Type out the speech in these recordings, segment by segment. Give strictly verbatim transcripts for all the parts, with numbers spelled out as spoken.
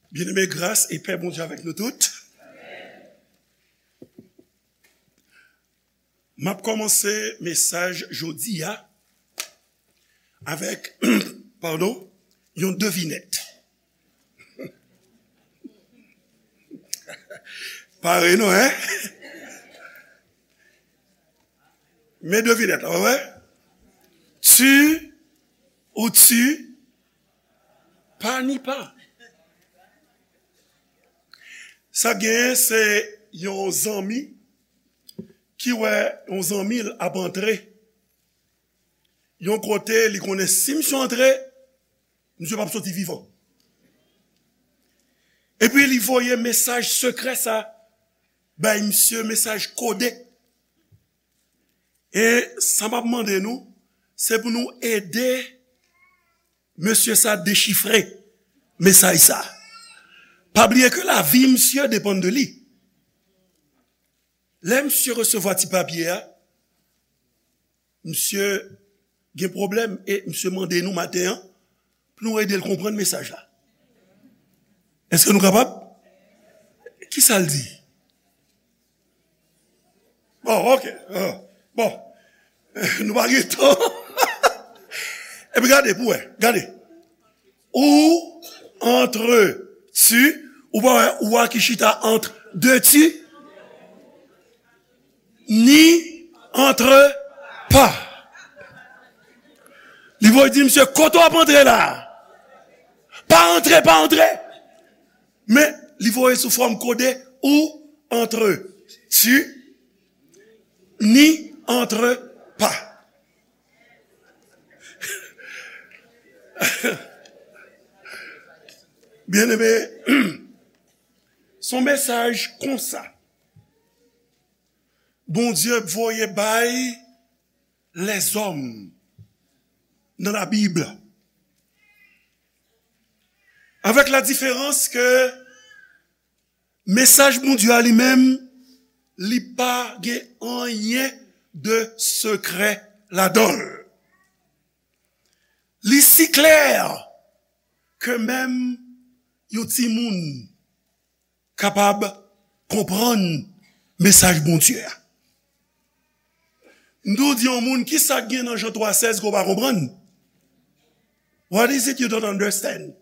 Byeneme, gras e pè Bondye avèk nou tout. M ap kòmanse mesaj jodi a avèk, padon, yon devinèt. Pare non, en? Men devinèt la, w wè? Tu ou tu pa ni pa. Sa genyen, se yon zanmi ki wè yon zanmi l ap antre yon kote, li konnen si misye antre, misye p ap soti vivan. Epi li voye mesaj sekrè sa bay misye, mesaj kode. E sa m ap mande nou, se pou nou ede mesye sa dechifre mesaj sa. Pa bliye ke lavi misye depann de li. Lè misye resevwa ti papye a, misye gen pwoblèm e misye mande nou maten an pou nou ede l konprann mesaj la. Èske nou kapab? Kisa l di? Bon, ok. Ah, bon. Nou pa gen tan. Epi gade, pou wè. Gade. Ou antre tu, ou pa wè ou a ki chita ant de ti, ni antre pa. Li voye di misye, kote w ap antre la? Pa antre, pa antre. Men, li voye sou fòm kode, ou antre tu, ni antre pa. Byeneme, se yon mesaj konsa Bondye voye bay lèzòm nan Labib. Avèk la diferans ke mesaj Bondye a li menm, li pa gen anyen de sekrè ladan l. Li si klè ke menm yon timoun kapab konprann mesaj Bondye a. M tou di yon moun, kisa k gen nan Jan twa sèz ke w pa konprann? What is it you don't understand?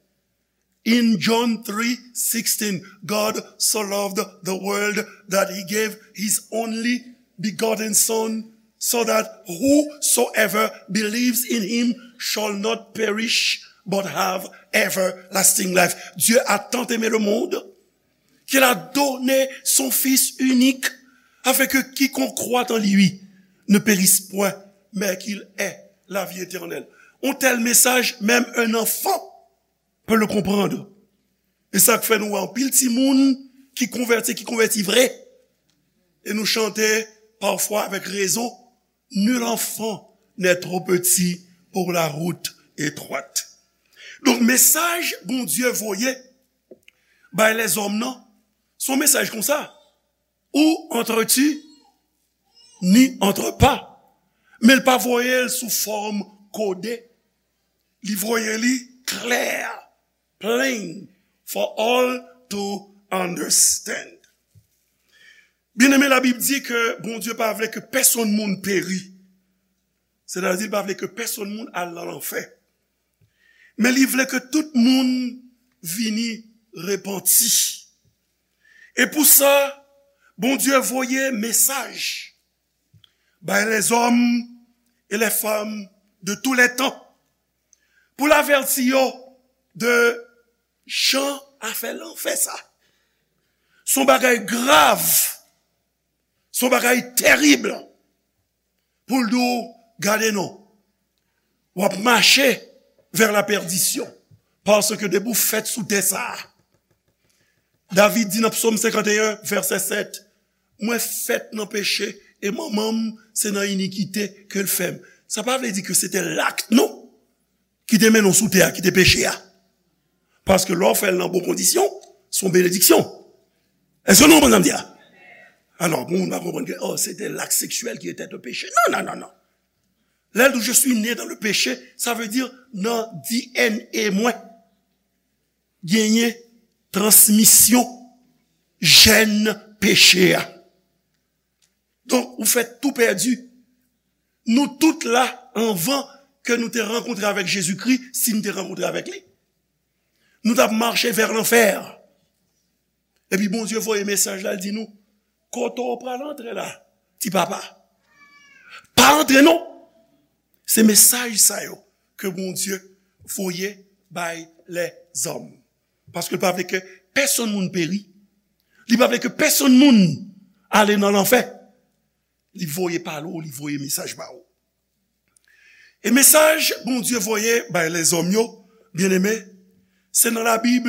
In John three sixteen, God so loved the world that he gave his only begotten Son, so that whosoever believes in him shall not perish but have everlasting life. Dieu a tant aimé le monde qu'il a donné son Fils unique, afin que quiconque croit en lui ne périsse point, mais qu'il ait la vie éternelle. Un tel message, même un enfant peut le comprendre. E sa k fè nou wè anpil timoun ki konvèti, ki konvèti vre. E nou chante pafwa avèk rezon, nul enfant n'est trop petit pour la route étroite. Donk, mesaj Bondye voye bay lèzòm nan, se yon mesaj konsa. Ou antre tu, ni antre pa. Men l pa voye l sou fòm kode. Li voye li klè, plain, for all to understand. Byeneme, Labib di ke Bondye pa vle ke pèsonn moun peri. Sètadi, li pa vle ke pèsonn moun al nan lanfè. Men li vle ke tout moun vini repanti. E pou sa, Bondye voye mesaj bay lèzòm e lèfanm de tou lè tan pou l avèti yo de jan afè lanfè sa. Se yon bagay grav, se yon bagay terib pou l di w, gade non, w ap mache vè la pèdisyon, paske depi w fèt sou tè sa a, David di nan Psaume cinquante et un, verset sept, mwen fèt nan peche e manman m se nan inikite ke l fè m. Sa pa vle di ke se te lak nou ki te mennen w sou tè a, ki te peche a. Paske lè w fè l nan bon kondisyon, se yon benediksyon. Èske nou konprann sa m di a? Alò, pou moun pa konprann ke, oh, se te lak seksyèl ki te te peche. Non, non, non, non. Lè l di, je suis né dans le péché, sa vle di nan D N A mwen genyen transmisyon jèn peche a. Donk, ou fè tou pèdi. Nou tout la, anvan ke nou te rankontre avèk Jezikri, si nou te rankontre avèk li, nou t ap mache vè lanfè. Epi Bondye voye mesaj la, l di nou, kote w pral antre la, ti papa? Pa antre non. Se mesaj sa yo ke Bondye voye bay lèzòm. Paske l pa vle ke pèsonn moun peri. Li pa vle ke pèsonn moun ale nan lanfè. Li voye pale w, li voye mesaj ba ou. E mesaj Bondye voye bay lèzòm yo, byeneme, se nan Labib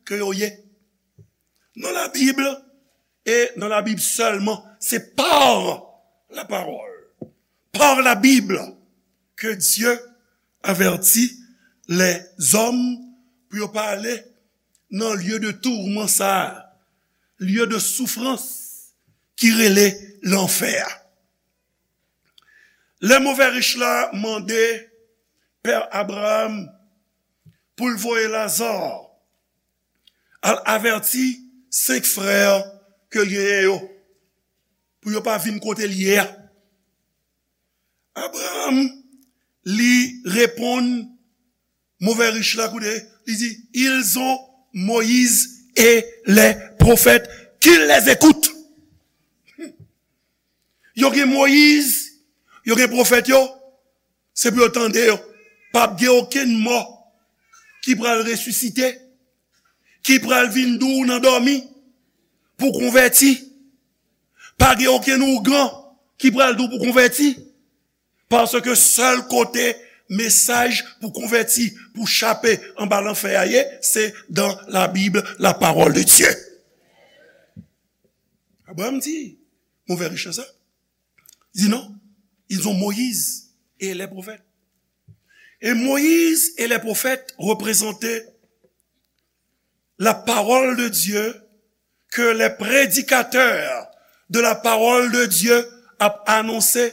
ke yo ye. Nan Labib, e nan Labib sèlman, se par la parole, par la Bible, que Dieu avertit les hommes pou yo pa ale nan lye de tourment sa, lye de souffrance ki rele lanfè a. Lè move rich la mande pè Abraram pou l voye Laza al avèti senk frè ke l genyen yo, pou yo pa vin kote l ye a. Abraram, li reponn move rich la, koute, li di, ils ont Moïse et les prophètes, qu'ils les écoutent. Yo gen Moyiz, yo gen pwofèt yo, se pou yo tande yo. P ap gen okenn mò ki pral resisite, ki pral vin di w nan dòmi pou konvèti. Pa gen okenn ougan ki pral di w pou konvèti. Paske sèl kote mesaj pou konvèti, pou chape anba lanfè a ye, se dans la Bible, la parole de Dieu. Abraram di, move rich la sa. Di non, ils ont Moïse et les prophètes. Et Moïse et les prophètes représentaient la parole de Dieu que les prédicateurs de la parole de Dieu ap anonse,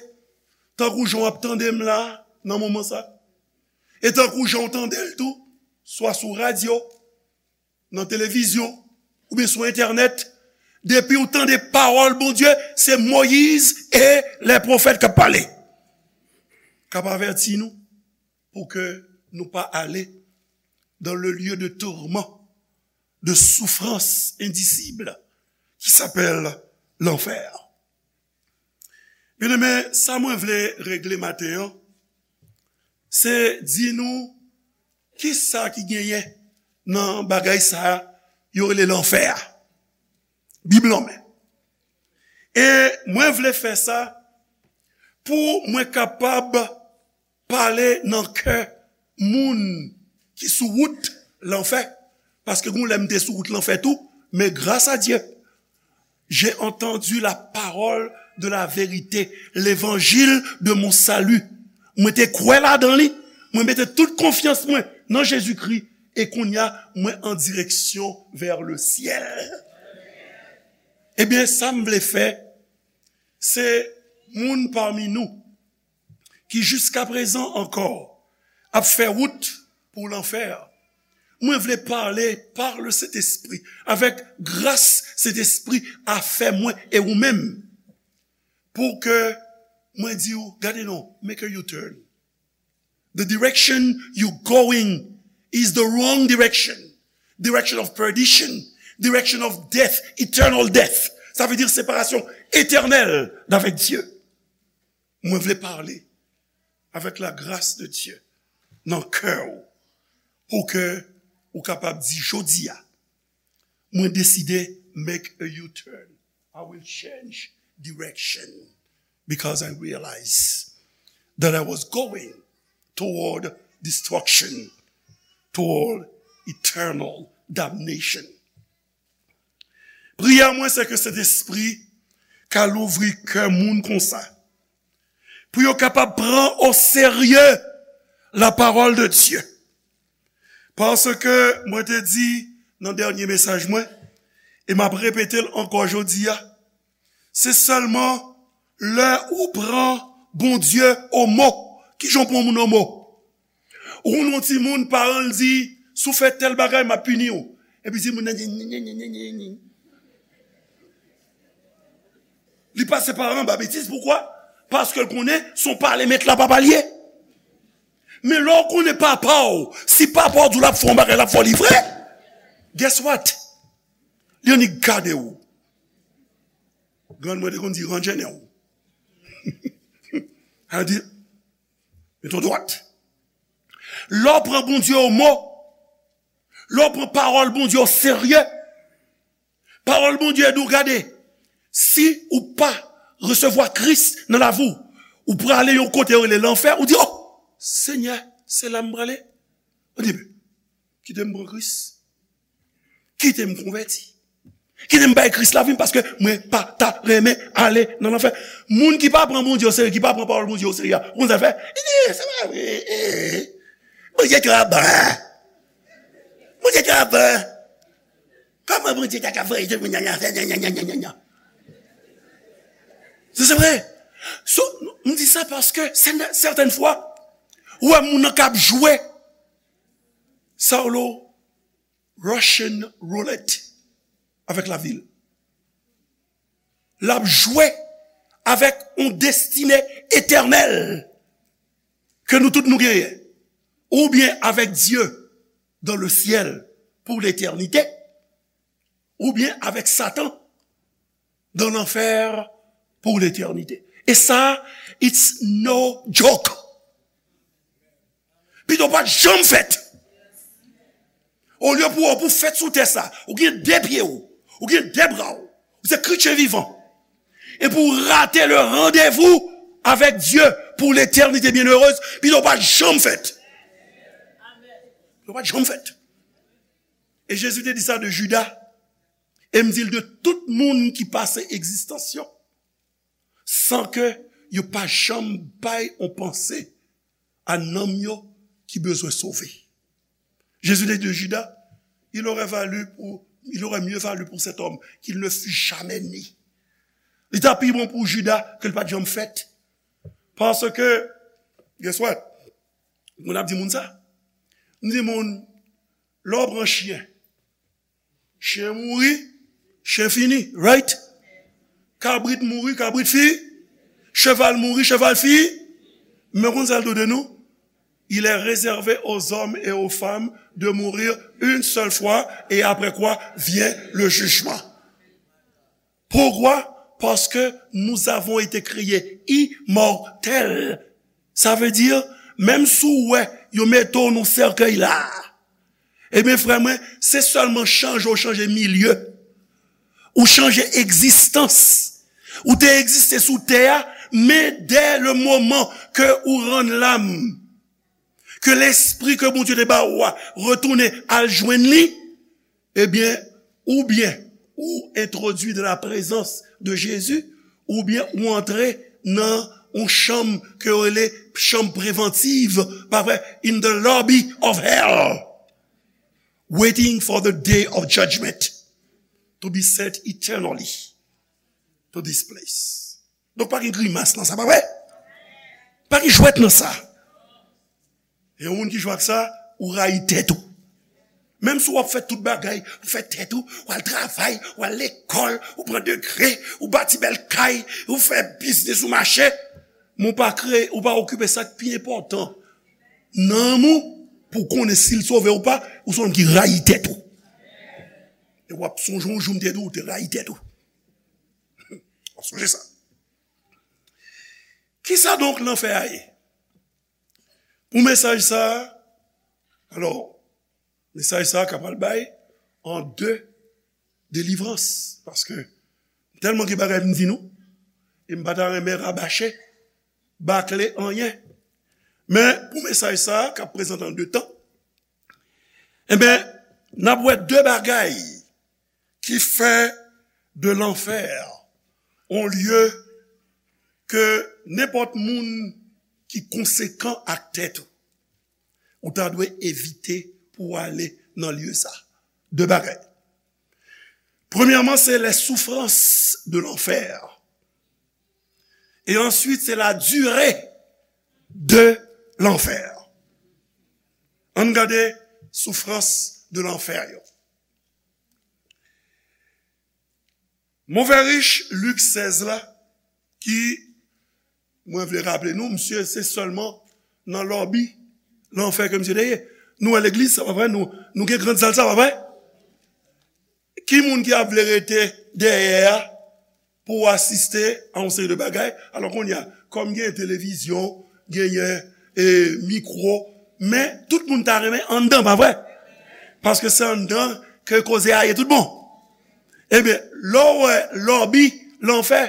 tankou jan w ap tande m la, nan moman sa. E tankou jan w tande l tou, swa sou radyo, nan televizyon, oubyen sou entènèt, depi w tande pawòl Bondye, se Moyiz e lè pwofèt k ap pale. K ap avèti nou pou ke nou pa ale dans le lieu de tourment, de souffrance indicible qui s'appelle l'enfer. Byeneme, sa mwen vle regle maten an, se di nou kisa ki genyen nan bagay sa a yo rele lanfè a. Bib lan men. E mwen vle fè sa pou mwen kapab pale nan kè moun ki sou wout lanfè. Paske gon lè m te sou wout lanfè tou, men gras a Dye, j'ai entendu la parole de la vérité, l'évangile de mon salut. Mwen te kwè ladan li, mwen mete tout konfyans mwen nan Jezikri, e kounye a, mwen an direksyon vers le ciel. Ebyen, sa m vle fè, se moun pami nou ki jiskaprezan ankò ap fè wout pou lanfè. Mwen vle pale par le Sentespri, avèk gras Sentespri a fè mwen e ou menm, pou ke mwen di w, gade non, make a U-turn. The direction you going is the wrong direction. Direction of perdition, direction of death, eternal death. Sa vle di separasyon etènèl avèk Dye. Mwen vle pale avèk la grâce de Dieu nan kè w, pou ke ou kapab di jodi a, mwen deside make a U-turn. I will change direction because I realize that I was going toward destruction, toward eternal damnation. Priyè mwen se ke Sentespri ka louvri kè moun konsa, pou yo kapab pran o serye la parole de Dieu. Paske mwen te di nan dènye mesaj mwen, e m ap repete l ankò jodi a, se sèlman lè ou pran Bondye o mo. Kijan w pran moun o mo? Ou konn yon timoun, paran l di, si w fè tèl bagay, m ap pini w. Epi si moun nan di, nye, nye, nye, nye, nye, nye. Li pase pa anba betiz, poukwa? Paske l konnen se yon pale met la pa pale. Men lè w konnen papa w, si papa w di w l ap fè yon bagay, l ap fè w li vre. Guess what? Li annik gade w. Grann mwen te konn di, "Ranje nen w." Al di, "Met w dwat." Lè w pran Bondye o mo, lè w pran pawòl Bondye o serye, pawòl Bondye di w, gade, si ou pa resevwa Kris nan lavi w, ou prale yon kote yo rele lanfè, ou di, "O, Senyè, se la m prale?" Ou di, "Kite m pran Kris. Kite m konvèti. Kite m bay Kris lavi m, paske mwen pa ta renmen ale nan lanfè." Moun ki pa pran Bondye o serye, ki pa pran pawòl Bondye o serye a, ou konn sa l fè? Li di, "Se pa vre. Bondye twò bon. Bondye twò bon. Kòman Bondye ta ka voye tout moun nan lanfè?" Se, se vre. So, m di sa paske sètèn fwa, ou wè moun nan k ap jwe sa w lo Russian roulette avèk lavi l. L ap jwe avèk yon destine etènèl ke nou tout nou genyen. Oubyen avèk Dye dans le ciel pour l'éternité, oubyen avèk Satan dans l'enfer pour l'éternité. E sa, it's no joke. Pito w pa t janm fèt. Olye pou w, pou w fèt sou tè sa, ou gen de pye w, ou gen de bra w, ou se kretyen vivan. E pou w rate le rendez-vous avec Dieu pour l'éternité bienheureuse, pito w pa t janm fèt. Pito w pa t janm fèt. E Jezi te di sa de Jida. E m di l de tout moun ki pase egzistans yo san ke yo pa janm bay yon panse a nanm yo ki bezwen sove. Jezi te di de Jida, il aurait valu pour, il aurait mieux valu pour cet homme qu'il ne fût jamais né. Li ta pi bon pou Jida ke l pa t janm fèt. Paske, guess what? Moun ap di moun sa. M di moun, lè w pran chyen, chen mouri, chen fini, right? Kabrit mouri, kabrit fini. Cheval mouri, cheval fini. Men konn sa l do de nou? Il est réservé aux hommes et aux femmes de mourir une seule fois, et après quoi vient le jugement. Pourquoi? Parce que nous avons été créés immortels. Sa vle di, menm si w wè yo mete w nan sèkèy la, ebyen, frè mwen, se sèlman chanje w chanje milye, ou chanje egzistans. Ou te egziste sou tè a, men dès le moment que ou rann lam, ke lespri ke Bondye te ba ou a retounen al jwenn li, ebyen, oubyen ou entwodui dans la présence de Jésus, oubyen ou antre nan yon chanm ke yo rele chanm prevantiv, pa vre, in the lobby of hell, waiting for the day of judgment to be sent eternally to this place. Donk, pa gen grimas nan sa, pa vre? Pa gen jwèt nan sa. E yon moun ki jwe ak sa, ou rayi tèt ou. Menm si w ap fè tout bagay, ou fè tèt ou, w al travay, w al lekòl, ou pran degre, ou bati bèl kay, ou fè biznis ou mache, men w pa kreye, ou pa okipe sa k pi enpòtan, nanm ou, pou w konnen si l sove ou pa, ou se yon nonm ki rayi tèt ou. E w ap sonje yon jou m te di w, ou te rayi tèt ou. W ap sonje sa. Kisa donk lanfè a ye? Pou mesaj sa a, alò, mesaj sa a ka pral bay an de delivrans, paske tèlman gen bagay pou m di nou, e m pa ta renmen rabache, bakle anyen. Men pou mesaj sa a, k ap prezante an de tan, enben, n ap wè de bagay ki fè de lanfè yon lye ke nenpòt moun ki konsekan ak tèt ou, ou ta dwe evite pou w ale nan lye sa. De bagay. Premyèman, c'est les souffrances de l'enfer. Et ensuite, c'est la durée de l'enfer. Ann gade soufrans de lanfè yo. Move rich Lik sèz la, ki, mwen vle raple nou, misye se sèlman nan lòbi lanfè ke misye te ye. Nou wè legliz, sa pa vre? Nou, nou gen grand sal, sa pa vre? Ki moun ki ap vle rete dèyè a pou asiste a yon seri de bagay? Alò kounye a, kòm gen televizyon, genyen, e, mikwo, men tout moun ta renmen anndan, pa vre? Paske se anndan ke koze a ye tout bon. Ebyen, lè w wè lòbi lanfè,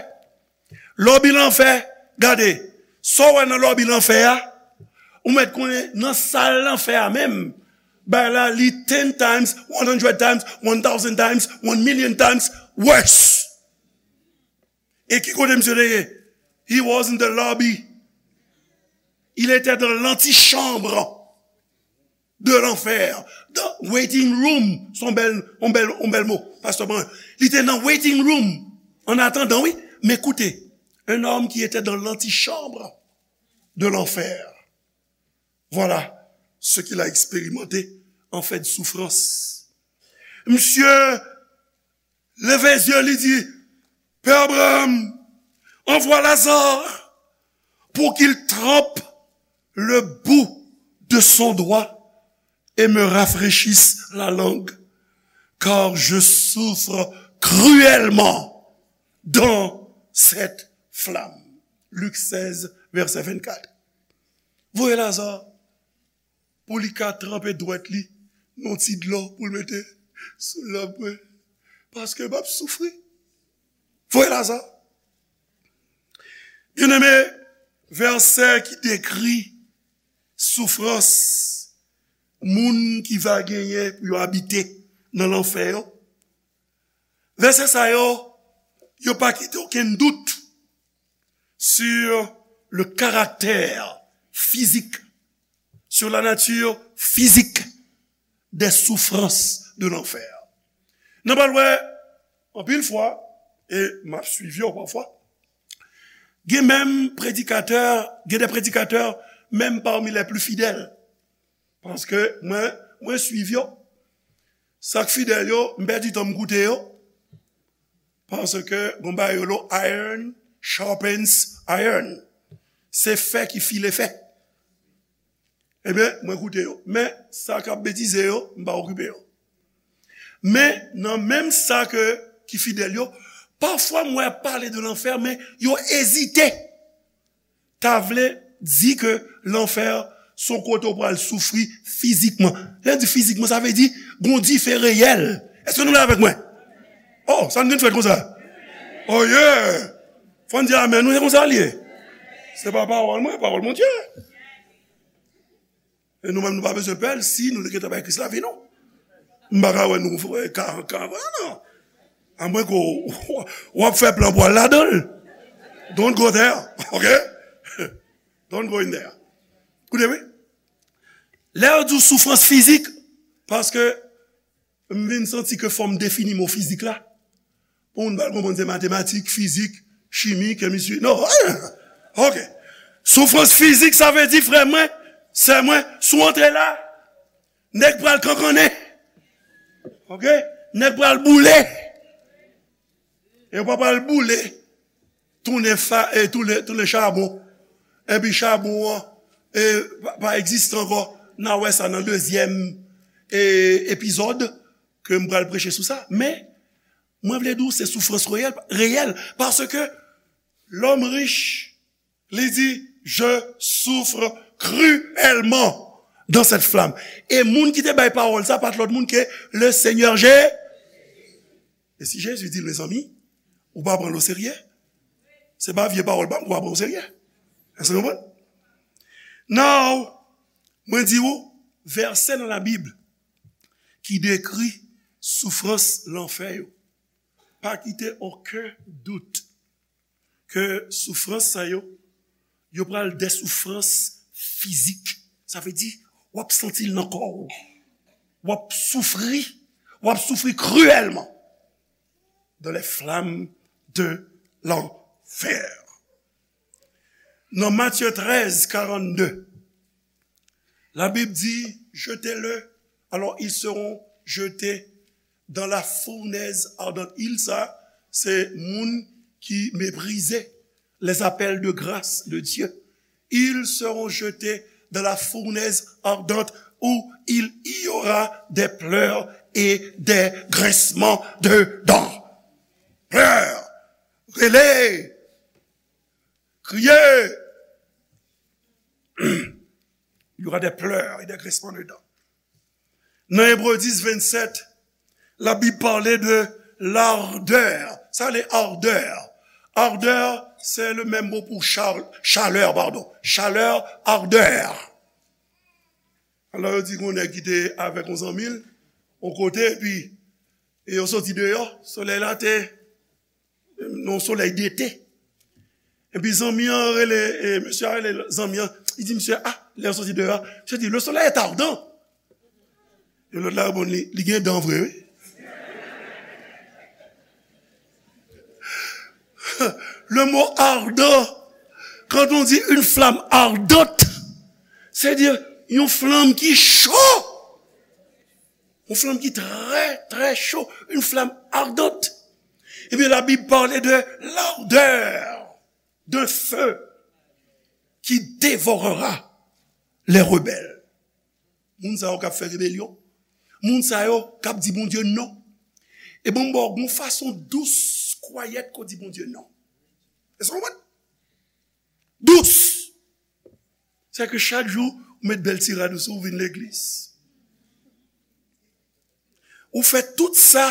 lòbi lanfè, gade, sa w wè nan lòbi lanfè a, ou mèt konnen nan sal lanfè a menm, bagay la li ten times, one hundred times, one thousand times, one million times worse. E ki kote misye te ye? He was in the lobby. Il était dans l'antichambre de l'enfer. The waiting room. Se yon bèl, yon bèl, yon bèl mo, pastè Brun. Li te nan waiting room. An atandan, wi. Men koute, un homme qui était dans l'antichambre de l'enfer. Voilà ce qu'il a expérimenté en fait de souffrance. Misye leve zye, li di, Pè Abraham, envoie Lazare pour qu'il trempe le bout de son doigt et me rafraîchisse la langue, car je souffre cruellement dans cette flamme. Lik sèz, vèsè vennkat. Voye Laza pou li ka tranpe dwèt li nan ti dlo pou l mete sou lanm mwen, paske m ap soufri. Voye Laza. Byeneme, vèsè ki dekri soufrans moun ki va genyen pou yo abite nan lanfè yo. Vèsè sa yo, yo pa kite okenn dout sur le caractère physique, sur la nature physique des souffrances de l'enfer. Nou pral wè anpil fwa, e m ap swiv yo pafwa, gen menm predikatè, gen de predikatè, menm parmi les plus fidèles. Paske mwen, mwen swiv yo. Sa k fidèl yo, m pèdi tan m koute yo. Paske gon bagay yo lo iron sharpens iron. Se fè ki file fè. Ebyen, mwen koute yo. Men, sa k ap betize yo, m pa okipe yo. Men, nan menm sa ke, ki fidèl yo, pafwa m wè y ap pale de lanfè, men yo ezite. Ta vle di ke lanfè se yon kote w pral soufri fizikman. Lè di fizikman, sa vle di gon dife reyèl. Èske nou la avèk mwen? Oh, sa n gen fèt konsa? Oh yeah! Fò n di amèn, nou, se konsa l ye. Se pa pawòl mwen, pawòl Bondye. E nou menm, nou pa bezwen pè l si nou te gentan bay Kris lavi nou. M pa ka wè nou, eh, ka, ka, non. Amwen ke w, w ap fè plan pou w al ladan l. Don't go there, ok? Don't go in there. Koute, wi. Lè yo di w soufrans fizik, paske m vin santi ke fò m defini mo fizik la. Pou moun pral konprann se matematik, fizik, chimi, kemistri. Non, ok. Soufrans fizik, sa vle di, frè mwen, sè mwen, si w antre la, nèg pral kankannen. Ok? Nèg pral boule. E yo pa pral boule, tounen fa, e tounen, tounen chabon. Epi chabon an, e, pa, pa egziste ankò. N a wè sa nan dezyèm, e, epizòd ke m pral preche sou sa. Men, mwen vle di w se soufrans reyèl, reyèl, paske lòm rich, li di, je souffre cruellement dans cette flamme. E moun ki te bay pawòl sa, pa t lòt moun ke le Senyè Je. E si Jezi di l, mezanmi, ou pa pran l oserye, se pa vye pawòl pa m pou w pa pran oserye. Èske w konprann? Now, mwen di w, vèsè nan Labib ki dekri soufrans lanfè yo. Pa kite okenn dout ke soufrans sa yo, yo pral de soufrans fizik. Sa vle di, w ap santi l nan kò w. W ap soufri, w ap soufri kriyèlman dans les flammes de l'enfer. Nan Matye trèz karannde, Labib di, jetez-le, alors ils seront jetés dans la fournaise ardente. Il sa, se moun ki meprize les appels de grâce de Dieu. Ils seront jetés dans la fournaise ardente où il y aura des pleurs et des grincements de dents. Pleurs, rele, kriye. Il y aura des pleurs et des grincements de dents. Nan Ebre dis vennsèt, Labib pale de lardè. Sa le ardè. Ardè, se le menm mo pou chal-, chalè, padon. Chalè, ardè. Alò, yo di gon nèg ki te avèk yon zanmi l, yon kote, epi, e yo soti deyò, solèy la te nan yon solèy dete. Epi zanmi an rele, e, mesye a rele zanmi an, li di misye, ah, lè yo soti deyò, misye di, le soleil est ardent. E lòt la reponn li, li gen dan vre, wi. Le mot ardent, quand on dit une flamme ardente, c'est dire yon flanm ki cho. Yon flanm ki trè, trè cho. Une flamme ardente. Ebyen, Labib pale de l'ardeur d'un feu qui dévorera les rebelles. Moun sa yo k ap fè rebelyon. Moun sa yo k ap di Bondye non. E bon, m ba w yon fason dous, kwayèt ke w di Bondye non. Èske w konprann? Dous. Se ke chak jou, ou met bèl ti rad ou sou, ou vin legliz. Ou fè tout sa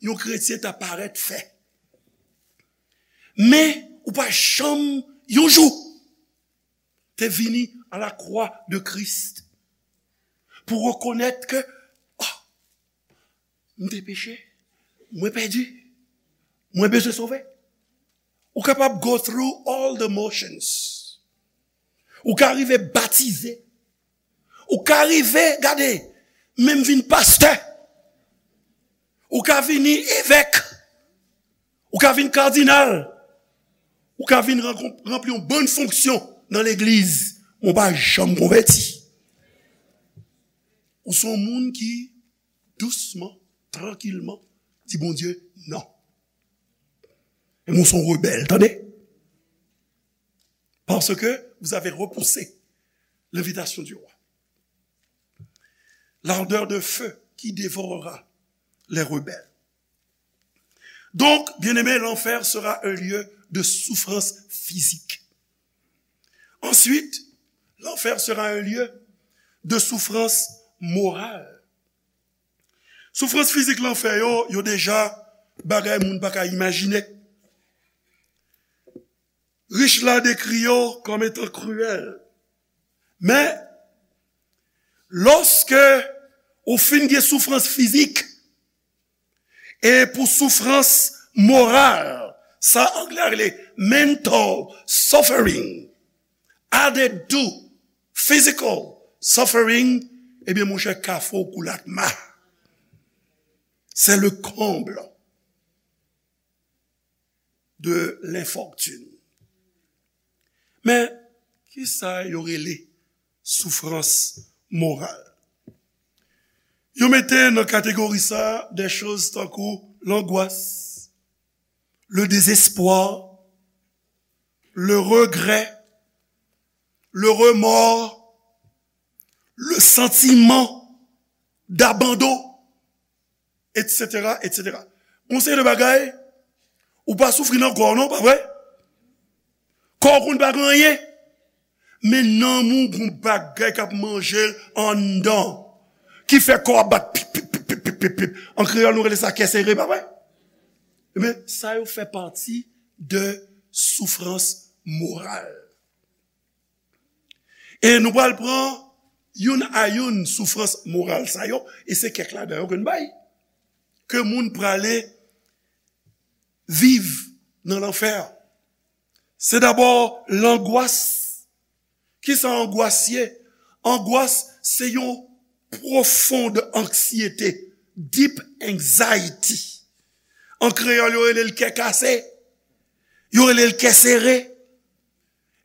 yon kretyen ta parèt fè. Men, ou pa janm, yon jou, te vini a la kwa de Kris pou rekonèt ke, oh, m te peche, mwen pèdi, mwen bezwen sove. Ou kapab go through all the motions. Ou ka rive batize. Ou ka rive, gade, menm vin pastè. Ou ka vini evèk. Ou ka vin kadinal. Ou ka vin rankon-, ranpli yon bann fonksyon nan legliz. Men w pa janm konvèti. Ou se yon moun ki dousman, trankilman, di Bondye non. E mwen se yon rebèl, tande. Parce que vous avez repoussé l'invitation du roi. L'ardeur de feu qui dévorera les rebelles. Donc, bien-aimés, l'enfer sera un lieu de souffrance physique. Ensuite, l'enfer sera un lieu de souffrance morale. Soufrans fizik lanfè yo, yo deja bagay moun pa ka imajine. Rich la dekri yo kòm etan kriyèl. Men, lòske ou fin gen soufrans fizik, e pou soufrans moral, sa anglè a rele mental suffering, added to physical suffering, ebyen, monchè, kafou koulatma. C'est le comble de l'infortune. Men, kisa yo rele soufrans moral? Yo mete nan kategori sa de choz tankou langwas, le désespoir, le regret, le remords, le sentiment d'abandon, et cetera, et cetera. Yon seri de bagay, ou pa soufri nan kò w non, pa vre? Kò w konn pa gen anyen. Men nanm ou gon bagay k ap manje l anndan, ki fè kò w ap bat pip, pip, pip. An kreyòl, nou rele sa kè sere, pa vre? Ebyen, sa yo fè pati de soufrans moral. E nou pral pran youn a youn soufrans moral sa yo, e se kèk ladan yo ke n bay, ke moun prale viv nan lanfè. Se dabò langwas. Kisa angwas ye? Angwas se yon pwofonn anksyete, deep anxiety. An kreyòl, yo rele l kè kase, yo rele l kè sere.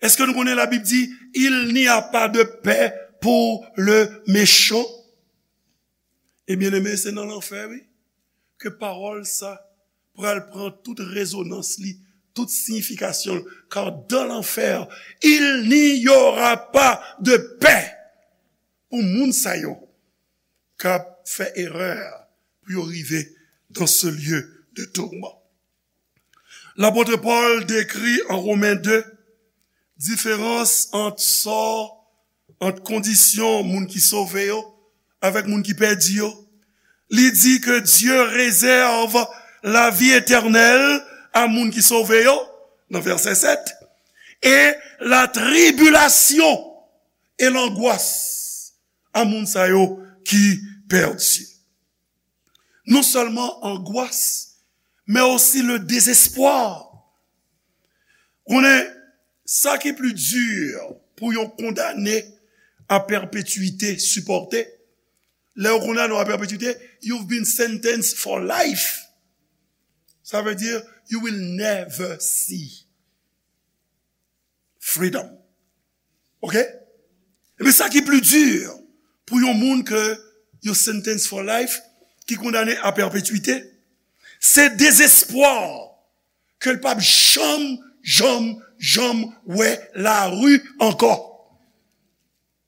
Èske nou konnen Labib di, il n'y a pas de paix pour le méchant? E byeneme, se nan lanfè, wi, ke pawòl sa pral pran tout rezonans li, tout siyifikasyon l, car dans l'enfer, il n'y aura pas de paix. Pou moun sa yo k ap fè erè pou yo rive dans ce lieu de tourment. Lapot Pòl dekri an Women de diferans ant sò, ant kondisyon moun ki sove yo avèk moun ki pèdi yo. Li di ke Dye rezèv lavi etènèl a moun ki sove yo, nan vèsè sèt, e latribilasyon e langwas a moun sa yo ki pèdi. Non sèlman angwas, men osi le dezespwa. Konnen, sa ki pli di pou yon kondane a pèpetwite sipòte, lè yo kondane w a pèpetwite, you've been sentenced for life. Sa vle di, you will never see freedom. Ok? Ebyen, sa ki pli di pou yon moun ke yo sentence for life, ki kondane a pèpetwite, se dezespwa ke l p ap janm, janm, janm wè lari ankò.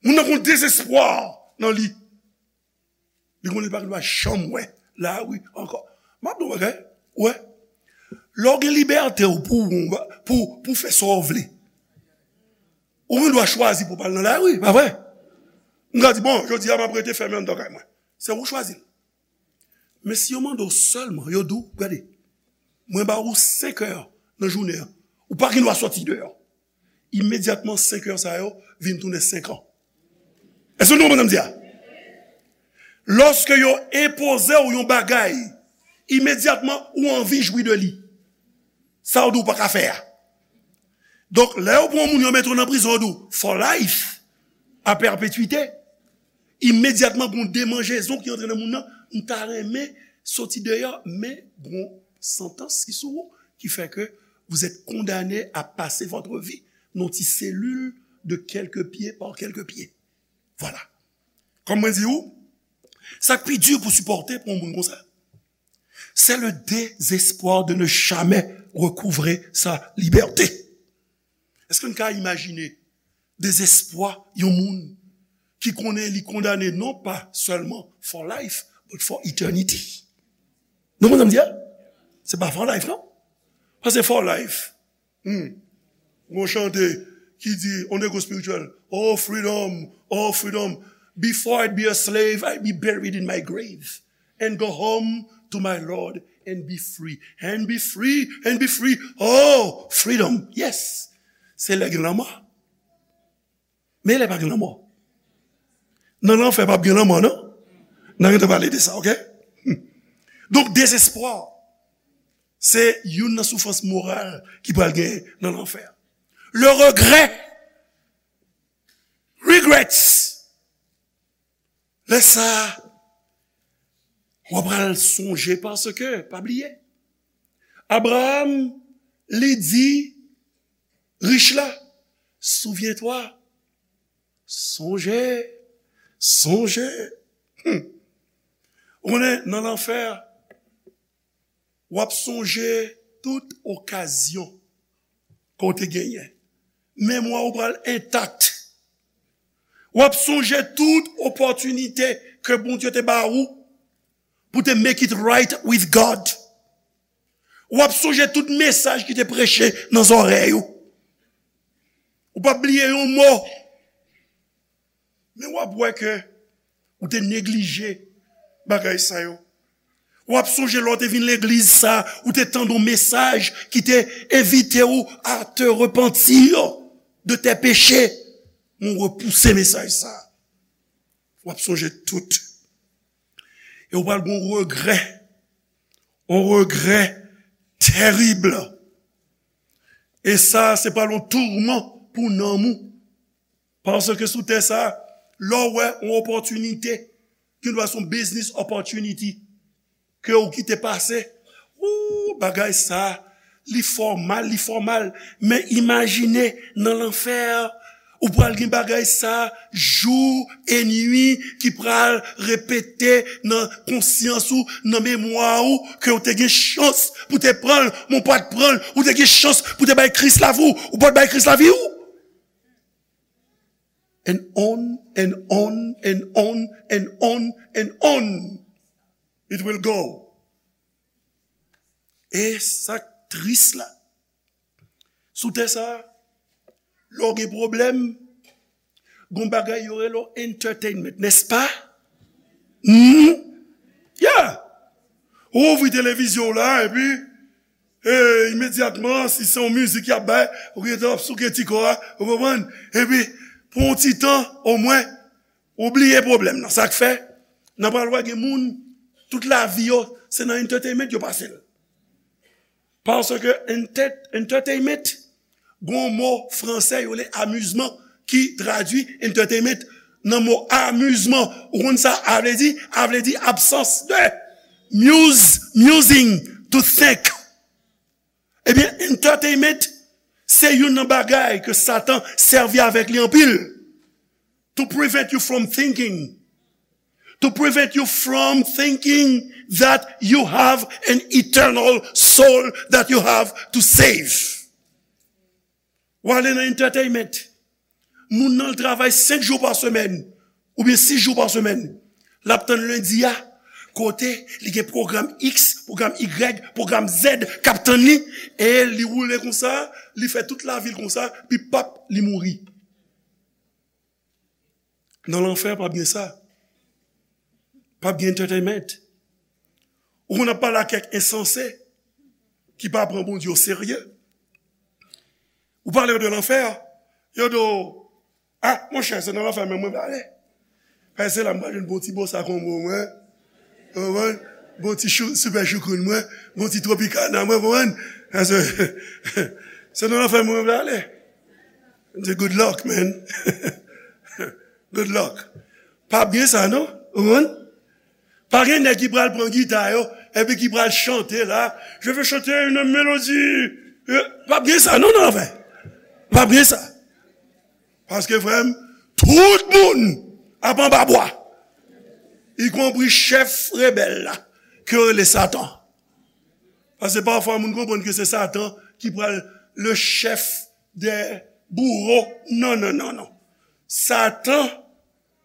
Moun nan gon dezespwa nan li. Li konnen li pa gen dwa janm wè lari ankò. M ap di w yon bagay, ou wè. Lè w gen libète w pou, pou, pou fè sa w vle, ou gen dwa chwazi pou w pa al nan lari, pa vre? M ka di, bon, jodi a m ap rete fèmen anndan kay mwen. Se ou chwazi l. Men si yo mande w sèlman, yo di w, gade, mwen ba ou senk è nan jounen an, ou pa gen dwa sòti deyò. Imedyatman, senk è sa yo vin tounen senk an. Èske nou konprann sa m di a? Lòske yo enpoze w yon bagay, imedyatman, ou anvi jwi de li. Sa yo di w pa ka fè a. Donk, lè yo pran yon moun, yo mete w nan prizon, yo di w, for life, a pèpetwite. Imedyatman, gon demanjezon ki antre nan moun nan, m ta renmen soti deyò, men gon santans ki sou ou, ki fè ke vous êtes condamné à passer votre vie nan ti selil de quelques pieds par quelques pieds. Vwala. Kòm mwen di ou, sa k pi di pou sipòte pou yon moun konsa, c'est le désespoir de ne jamais recouvrer sa liberté. Èske n ka imajine dezespwa yon moun ki konnen li kondane non pa sèlman for life, but for eternity? Nou konprann sa m di a? Se pa for life, non? Paske for life, hmm, gon chante ki di, on negwo espirityèl, "Oh freedom, oh freedom, before I'd be a slave, I'd be buried in my grave and go home to my Lord and be free, and be free, and be free. Oh freedom." Yes. Se lè gen lanmò. Men lè pa gen lanmò. Nan lanfè p ap gen lanmò, non? N a gentan pale de sa, ok? Donk, dezespwa, se youn nan soufrans moral ki pral genyen nan lanfè. Le regret, regrets. Lè sa a, w ap pral sonje paske, pa bliye, Abraram, li di rich la, souviens-toi, sonje, sonje. Hmm. Ou konnen, nan lanfè, w ap sonje tout okazyon ke w te genyen. Memwa ou pral entak. W ap sonje tout opòtinite ke Bondye te ba ou pou te make it right with God. W ap sonje tout mesaj ki te preche nan zòrèy ou. Ou p ap bliye yon mo. Men w ap wè ke ou te neglije bagay sa yo. W ap sonje lè w te vin legliz sa, ou te tande yon mesaj ki te envite w à te repentir de tes péchés. Men w repouse mesaj sa. W ap sonje tout. E w pral gen yon regrè. Yon regrè tèrib. E sa, se pral yon tourman pou nanm ou. Paske sou tè sa, lè w wè yon opòtinite, ki dwa se yon business opportunity, ke w kite pase, ou, bagay sa, li fè w mal, li fè w mal. Men imajine nan lanfè, Ou pral gen bagay sa jou e nwi ki pral repete nan konsyans ou, nan memwa ou, ke ou te gen chans pou te pran l, men ou pa t pran l, ou te gen chans pou te bay Kris lavi w, ou pa t bay Kris lavi w. And on, and on, and on, and on, and on. It will go. E sa k tris la, sou tè sa, lè w gen pwoblèm, gon bagay yo rele w entertainment, nèspa? Hmm? Yeah! Ou ouvri televizyon w la, epi, e, imedyatman, si se yon mizik y ap bay, ou gentan ap souke ti kò a, ou konprann? Epi, pou yon ti tan, omwen, ou bliye pwoblèm nan. Sa k fè, nan pral wè gen moun, tout lavi yo, se nan entertainment yo pase l. Paske enter-, entertainment, gon mo fransè yo rele amizman ki tradui entertainment nan mo amizman. Ou konn sa a vle di? A vle di absans de muse, musing, to think. Ebyen, entertainment se youn nan bagay ke Satan sèvi avèk li anpil. To prevent you from thinking, to prevent you from thinking that you have an eternal soul that you have to save. W ale nan entertainment. Moun nan l travay senk jou pa semèn, oubyen sis jou pa semèn. L ap tann lendi a, kote li gen pwogram X, pwogram Y, pwogram Z k ap tann li, e li woule konsa, li fè tout lavi l konsa, pi pap, li mouri. Nan lanfè, p ap gen sa. P ap gen entertainment. Ou konn ap pale ak kèk ensanse ki pa pran Bondye oserye. Ou pale yo de lanfè, yo di w, "Ah, monchè, se nan lanfè menm mwen prale." Paske se la m pral jwenn bon ti bossa combo mwen. Ou konprann? Bon ti chou, sipè choukoun mwen. Bon ti tropicana mwen, konprann? Paske se nan lanfè mwen prale. M di, "Good luck, man." Good luck. Pa byen sa, non? Ou konprann? Pa gen nèg ki pral pran gita yo, epi ki pral chante la, "Je veux chanter une mélodie." Euh, pa byen sa, non, nan lanfè. Pa byen sa. Paske, frè m, tout moun ap anba bwa. Ikonpri chèf rebèl la, ke yo rele Satan. Paske pafwa, moun konprann ke se Satan ki pral le chèf dè bouwo. Non, non, non, non. Satan,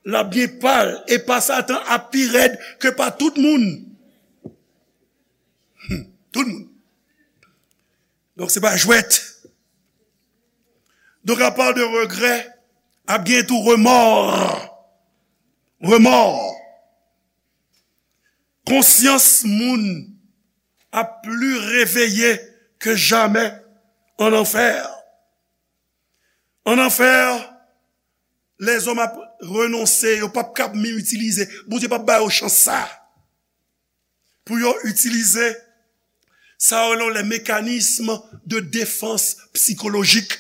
l ap gen pa l, e pa Satan ap pi rèd ke pa tout moun. Hmm, tout moun. Donk, se pa jwèt. Donk, apa de regrè, ap gen tou remò. Remò. Konsyans moun ap pli reveye ke jamè an anfè. An anfè, lèzòm ap renonse, yo p ap kab menm itilize. Bondye p ap ba yo chans sa a. Pou yo itilize sa yo rele les mécanismes de défense psychologique.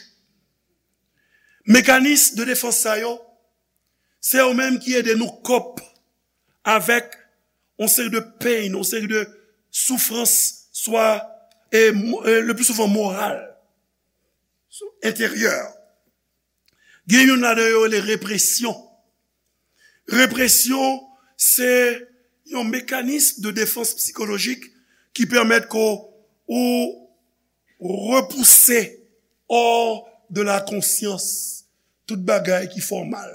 Mekanis de defans sa yo, se yo menm ki ede nou kòp avèk yon seri de pain, yon seri de soufrans, swa, e, mo-, e, le pli souvan moral, enteryè. Gen youn ladan yo rele represyon. Represyon, se yon mekanis de defans sikolojik ki pèmèt ke w repouse hors de la conscience tout bagay ki fè w mal.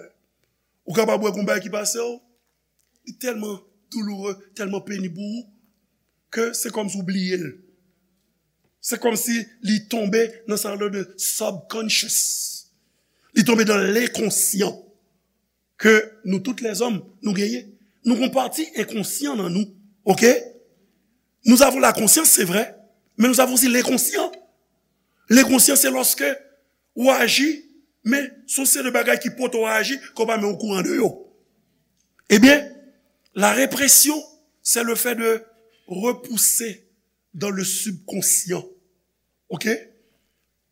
Ou kapab wè gon bagay ki pase w, li tèlman douloure, tèlman penib pou ou, ke se kòmsi w bliye l. Se kòmsi li tonbe nan sa yo rele de subconscious. Li tonbe nan lenkonsyan ke nou tout lèzòm nou genyen. Nou gon pati enkonsyan nan nou, oke? Nous avons la conscience, c'est vrai, mais nous avons aussi l'inconscient. Lenkonsyan, se lòske ou aji, men se yon seri de bagay ki pote w aji, ke w pa menm okouran de yo. Ebyen, la repression, c'est le fait de repousser dans le subconscient. Oke?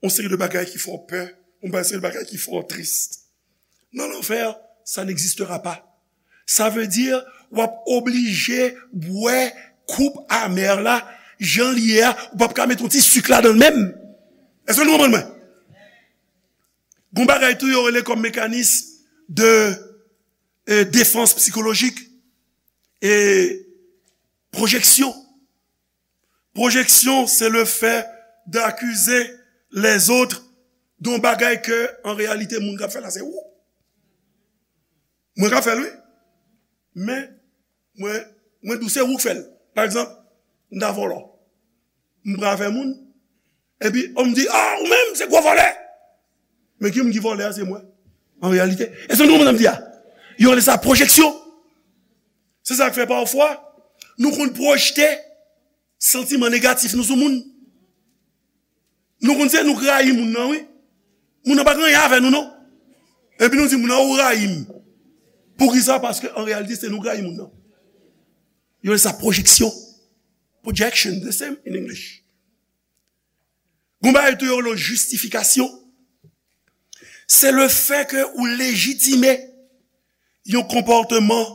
Yon seri de bagay ki fè w pè, yon seri de bagay ki fè w tris. Nan lanfè, ça n'existera pas. Sa vle di, w ap oblije bwè koub amè la, jan l ye a, ou p ap ka met yon ti sik ladan l menm. Èske nou konprann mwen? Gon bagay tou yo rele kòm mekanis de, eh, defans sikolojik, e pwojeksyon. Pwojeksyon, se le fè dakize lèzòt de yon bagay ke, an reyalite, moun k ap fè l la, se ou. Mwen k ap fè l, wi. Men, mwen, mwen di w se ou k fè l. Pa egzanp, m ta vòlò. M pran afè moun. Epi, on m di, ah, ou menm, se gwo vòlè. Men ki moun ki vòlè a, se mwen. An reyalite. Èske nou konprann sa m di a? Yo rele sa pwojeksyon. Se sa k fè pafwa, nou konn pwojte santiman negatif nou sou moun. Nou konn se nou k rayi moun nan, wi. Moun nan pa gen anyen avè nou, non. Epi nou di moun nan, ou rayi m. Poukisa? Paske an reyalite, se nou k rayi moun nan. Yo rele sa pwojeksyon. Projection, the same in English. Gon bagay tou yo rele jistifikasyon. Se le fè ke ou lejitime yon konpòteman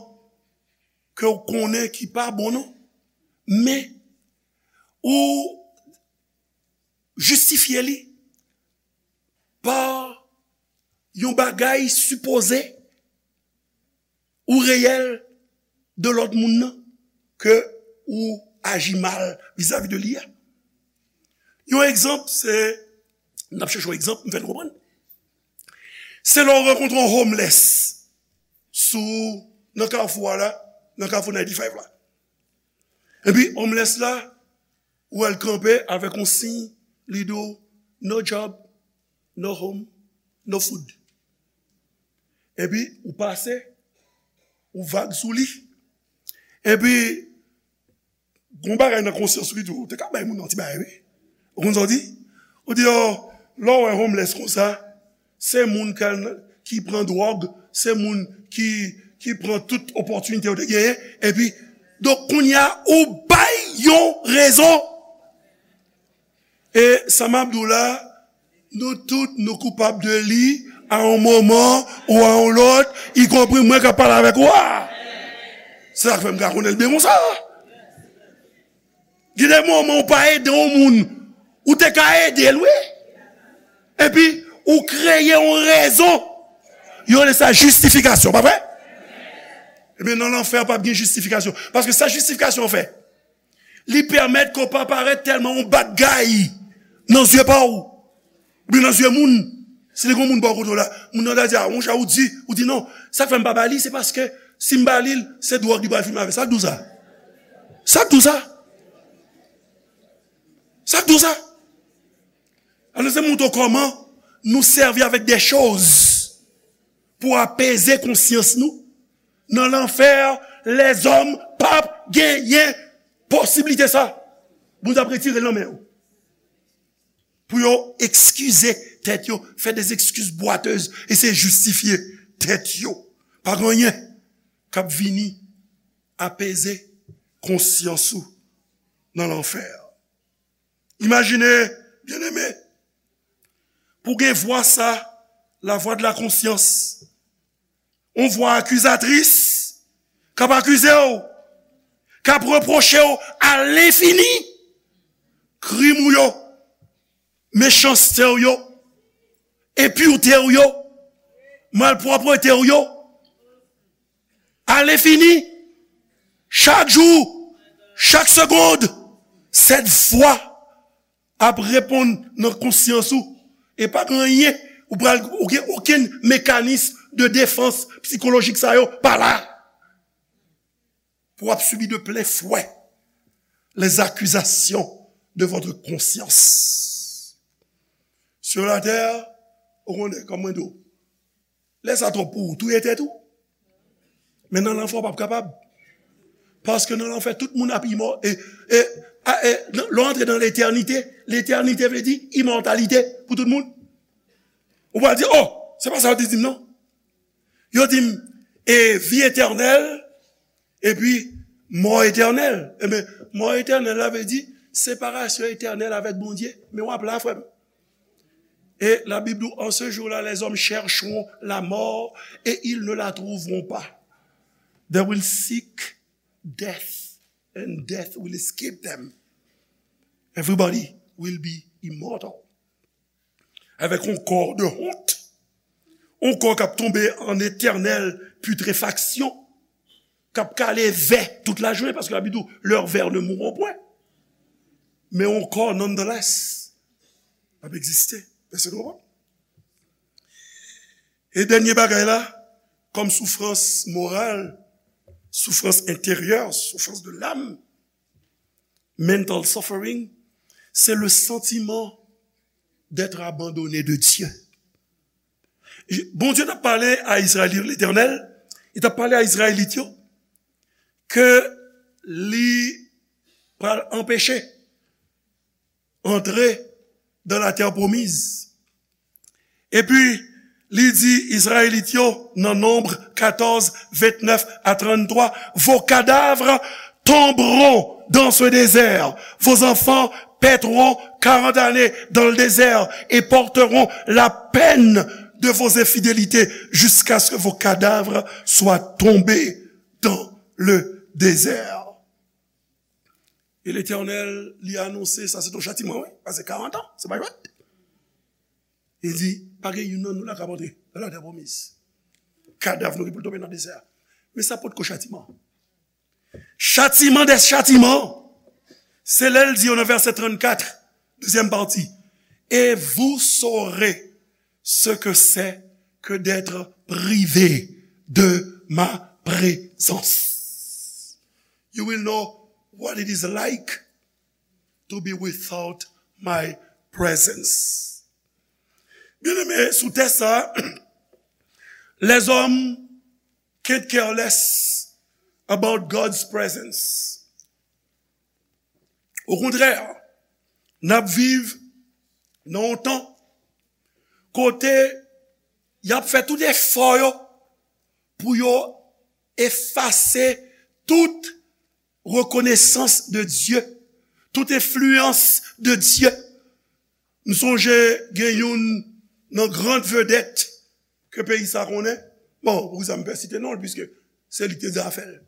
ke w konnen ki pa bon, non. Men, ou jistifye li pa yon bagay sipoze ou reyèl de lòt moun nan ke ou aji mal vizavi de li a. Yon egzanp, se, n ap chèche yon egzanp, m fè n konprann. Se lè w rankontre yon homeless sou, nan kafou a la, nan kafou ninety-five la. Epi, homeless la, ou wè l kanpe avèk yon siy, li di w, "No job, no home, no food." Epi, ou pase, ou vag sou li. Epi, gon bagay nan konsyans ou ki di w, ou te ka bay moun nan ti bagay, wi. Ou konn sa w di? Ou di, oh, lè w wè homeless konsa, se moun k al, ki pran dwòg, se moun ki, ki pran tout opòtinite yo te genyen, epi, donk, kounye a, ou bay yon rezon. E sa m ap di w la, nou tout, nou koupab de li, a yon moman ou a yon lòt, ikonpri mwen k ap pale avèk ou a. Se sa k fè m ka konnen l byen konsa. Gen de moman ou pa ede yon moun, ou te ka ede l, wi. Epi, ou kreye yon rezon. Yo rele sa jistifikasyon, pa vre? Ebyen, nan lanfè, p ap gen jistifikasyon. Paske sa jistifikasyon fè, li pèmèt ke w pa parèt tèlman yon bad guy nan zye pa w. Oubyen nan zye moun, si te gen moun bò kote w la, moun nan ta di, ah, monchè, ou di, ou di non. Sa k fè m pa ba li, se paske si m ba li l, se dwòg li pral fime avè. Sa k di w sa? Sa k di w sa? Sa k di w sa? Alò, se montre w kòman nou sèvi avèk de choz pou apeze konsyans nou. Nan lanfè, lèzòm p ap genyen posiblite sa. Bondye ap retire l nan men yo. Pou yo ekskize tèt yo, fè de ekskiz bwatez, eseye jistifye tèt yo. Pa gen anyen k ap vini apeze konsyans ou nan lanfè. Imajine, byeneme, pou gen vwa sa, la voix de la conscience, yon vwa akizatris, k ap akize w, k ap repwoche w alenfini krim ou yo, mechanste w yo, enpirte w yo, malpwòpte w yo, alenfini, chak jou, chak segonn, sèt vwa ap reponn nan konsyans ou, e pa gen anyen, ou pral, ou gen okenn mekanis de defans sikolojik sa yo pa la. Pou w ap sibi de plen fwè les accusations de votre conscience. Sur la terre, ou konnen, kòm mwen di w, lè sa twòp pou ou, touye tèt ou. Men nan lanfè, w p ap kapab. Paske nan lanfè, tout moun ap imò-, e, e, a, e, nan, lè w antre nan letènite, letènite vle di imòtalite pou tout moun. Ou pral di, oh, se pa sa yo te di m, non. Yo di m, e, vi etènèl, epi mò etènèl. Ebyen, mò etènèl la vle di separasyon etènèl avèk Bondye. Men w ap la, frè m. Et la Bible dit, en ce jour-là, les hommes chercheront la mort et ils ne la trouveront pas. They will seek death and death will escape them. Everybody will be immortal. Avèk yon kò de wont, yon kò k ap tonbe an etènèl pitrefaksyon, k ap kale vè tout lajounen, paske Labib di w, leurs vers ne mourront point. Men yon kò, nonetheless, ap egziste. Èske nou konprann? E dènye bagay la, kòm soufrans moral, soufrans enteryè, soufrans de l'âme, mental suffering, c'est le sentiment d'être abandonné de Dieu. Bondye t ap pale a Izrayelit, Letènèl, li t ap pale a Izrayelit yo, ke li pral anpeche antre dans la terre promise. Epi, li di Izrayelit yo nan Nonb katòz, ventnèf a tranntwa, vos cadavres tomberont dans ce désert, vos enfants paîtront quarante années dans le désert et porteront la peine de vos infidélités jusqu'à ce que vos cadavres soient tombés dans le désert. E Letènèl, li anonse, sa se yon chatiman, wi, pase karant an, se pa jwèt. Li di, pa gen youn nan nou la k ap antre nan latè pwomiz. Kadav nou gen pou l tonbe nan dezè a. Men sa potko chatiman. Chatiman dè chatiman, se lè l di yo nan vèsè trannkat, dezyèm pati, et vous saurez ce que c'est que d'être privé de ma présence. You will know what it is like to be without my presence. Byeneme, sou tè sa, les hommes can't care less about God's presence. Okontrè, n ap viv nan yon tan kote y ap fè tout efò yo pou yo efase tout rekonesans de Dye, tout enfliyans de Dye. M sonje gen youn nan gran vedèt ke peyi sa konnen. Bon, poukisa m pè site non l, piske se li ki te di afè l.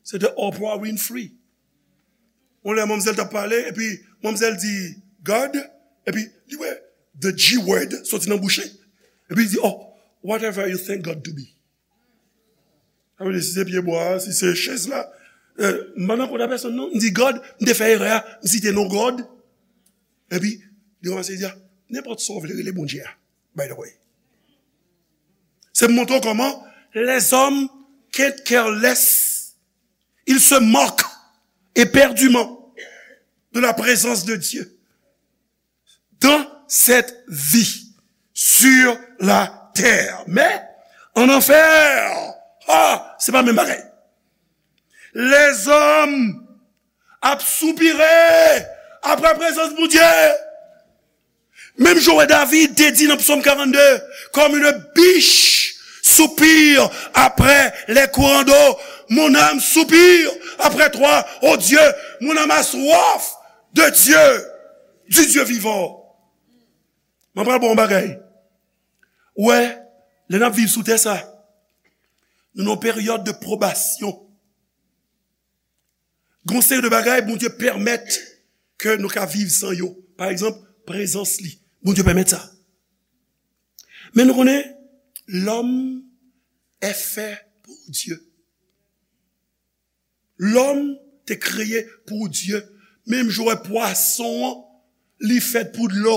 Se te Oprah Winfrey. Yon lè manmzèl t ap pale, epi manmzèl di God, epi li wè the G word soti nan bouch li. Epi li di, "Oh, whatever you think God to be." Sa vle di, si se pye bwa a, si se chèz la, eh, m pa nan kont a pèsonn non. M di God, m te fè erè a, m site non God. Epi, li kòmanse di, "Ah, nenpòt sa w vle rele Bondye a, by the way." Se pou montre w kòman les hommes can't care less. Ils se moquent éperdument de la présence de Dieu dans cette vie sur la terre. Men, an anfè, ah, se pa menm bagay. Lèzòm ap soupire apre prezans Bondye. Menm jan w wè David te di nan Psaume quarante-deux, comme une biche soupire après les courants d'eau, mon âme soupire après toi, ô Dieu, mon âme a soif de Dieu, du Dieu vivant. Mwen pral ba w yon bagay. Ou wè, lè n ap viv sou tè sa, nou nan yon peryòd de pwobasyon. Gon seri de bagay Bondye pèmèt ke nou ka viv san yo. Pa egzanp, prezans li. Bondye pèmèt sa. Men nou konnen, l'homme est fait pour Dieu. Lòm te kreye pou Dye. Menm jan w wè pwason an, li fèt pou dlo.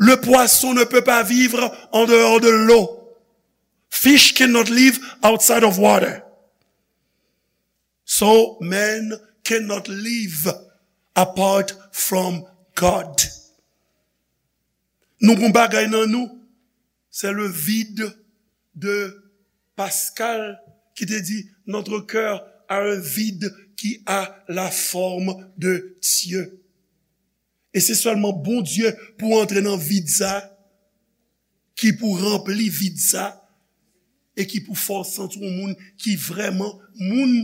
Le poisson ne peut pas vivre en dehors de l'eau. Fish cannot live outside of water. So man cannot live apart from God. Nou gon bagay nan nou, c'est le vide de Pascal ki te di, notre cœur a un vide qui a la forme de Dieu. E se sèlman Bondye pou antre nan vid sa, ki pou ranpli vid sa, e ki pou fè w santi w moun ki vrèman moun.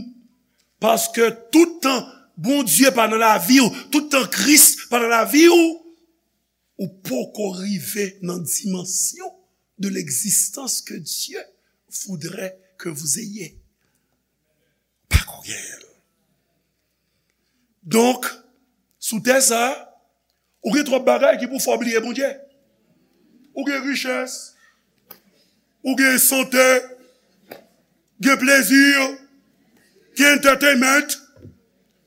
Paske tout tan Bondye pa nan lavi w, tout tan Kris pa nan lavi w, ou poko rive nan dimansyon de l'existence que Dieu voudrait que vous ayez. Pako genyen l. Donk, sou tè sa, ou gen twòp bagay ki pou fè w bliye Bondye. Ou gen richès, Ou gen sante, gen plezi, gen entertainment.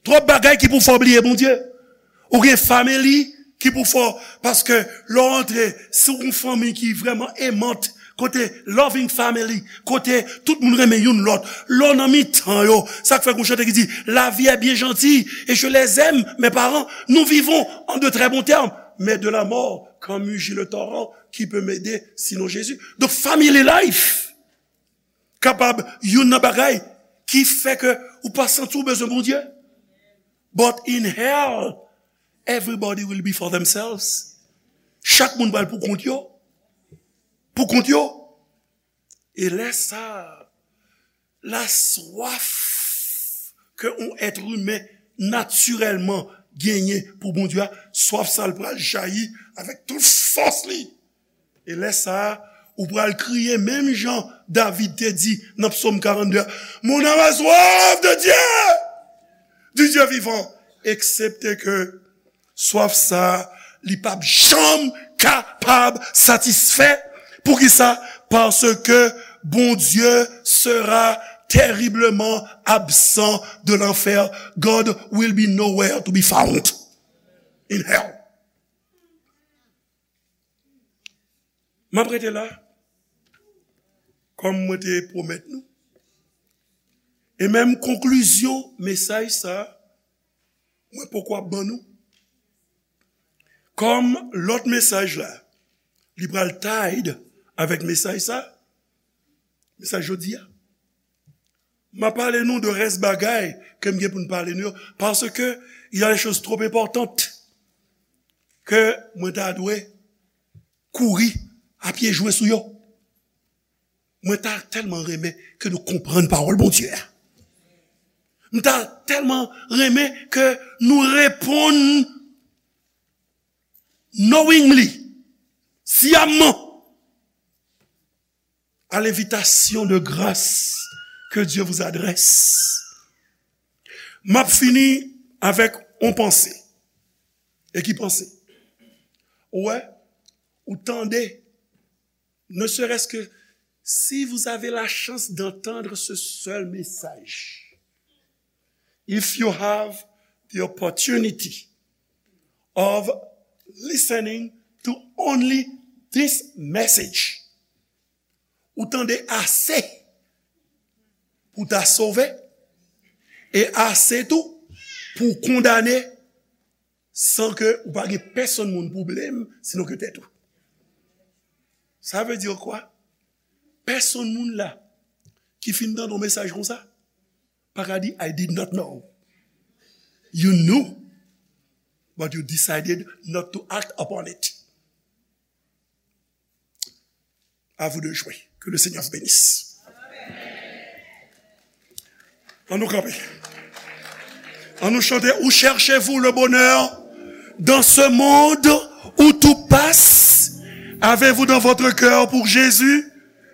Twòp bagay ki pou fè w bliye Bondye. Ou gen family ki pou fè w, paske lè w antre, si w gen yon fanmi ki vrèman aimant, kote loving family, kote tout moun renmen youn lòt, lè w nan mitan yo, sa k fè gen yon chante ki di, la vie est bien gentille et je les aime, mes parents, nous vivons en de très bons termes, mais de la mort, quand mugit le torrent, qui peut m'aider sinon Jésus? Donk, family life kapab youn nan bagay ki fè ke ou pa santi w bezwen Bondye. But in hell, everybody will be for themselves. Chak moun pral pou kont yo. Pou kont yo. E lè sa, la swaf ke yon èt imen natirèlman genyen pou Bondye a, swaf sa l pral jayi avèk tout fòs li. E lè sa a, ou pral kriye menm jan David te di nan Psaume quarante-deux, mon âme a soif de Dieu, du Dieu vivant, eksepte ke swaf sa a, li p ap janm kapab satisfè. Poukisa? Parce que Bondye sera terriblement absent de l'enfer. God will be nowhere to be found in hell. M ap rete la, kòm mwen te pwomèt nou. E menm konklizyon mesaj sa, mwen poko ap ban nou. Kòm lòt mesaj la, li pral tied avèk mesaj sa, mesaj jodi a. M ap pale nou de rès bagay ke m gen pou m pale nou yo, paske il y a des choses trop importantes ke mwen ta dwe kouri a pye jwe sou yo. Mwen ta tèlman renmen ke nou konprann pawòl Bondye a. M ta tèlman renmen ke nou reponn knowingly, siyamman, à l'invitation de grâce que Dieu vous adresse. M ap fini avèk yon panse. E ki panse? Ou wè, ou tande, ne serait-ce que si vous avez la chance d'entendre ce seul message, if you have the opportunity of listening to only this message, ou tande ase pou ta sove, e ase tou pou kondane, san ke ou pa gen pèsonn moun pou blame, sinon ke tèt ou. Sa vle di kwa? Pèsonn moun la ki fin tande yon mesaj konsa pa ka di, I did not know. You knew, but you decided not to act upon it. À vous de jouer. Que le Seigneur vous bénisse. An nou kanpe. An nou chante, où cherchez-vous le bonheur dans ce monde où tout passe? Avez-vous dans votre cœur pour Jésus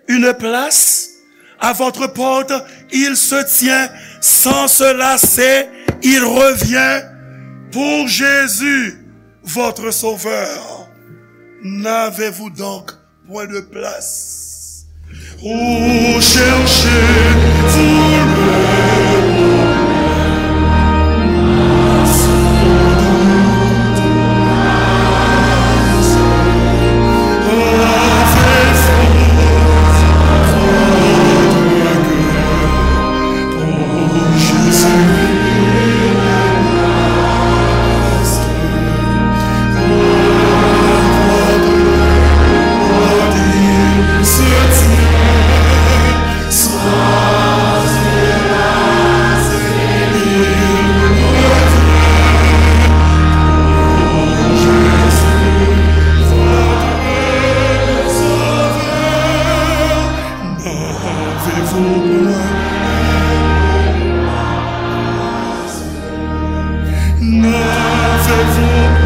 une place? À votre porte, il se tient sans se lasser, il revient pour Jésus, votre Sauveur. N'avez-vous donc point de place? Où cherchez-vous le N'avez-vous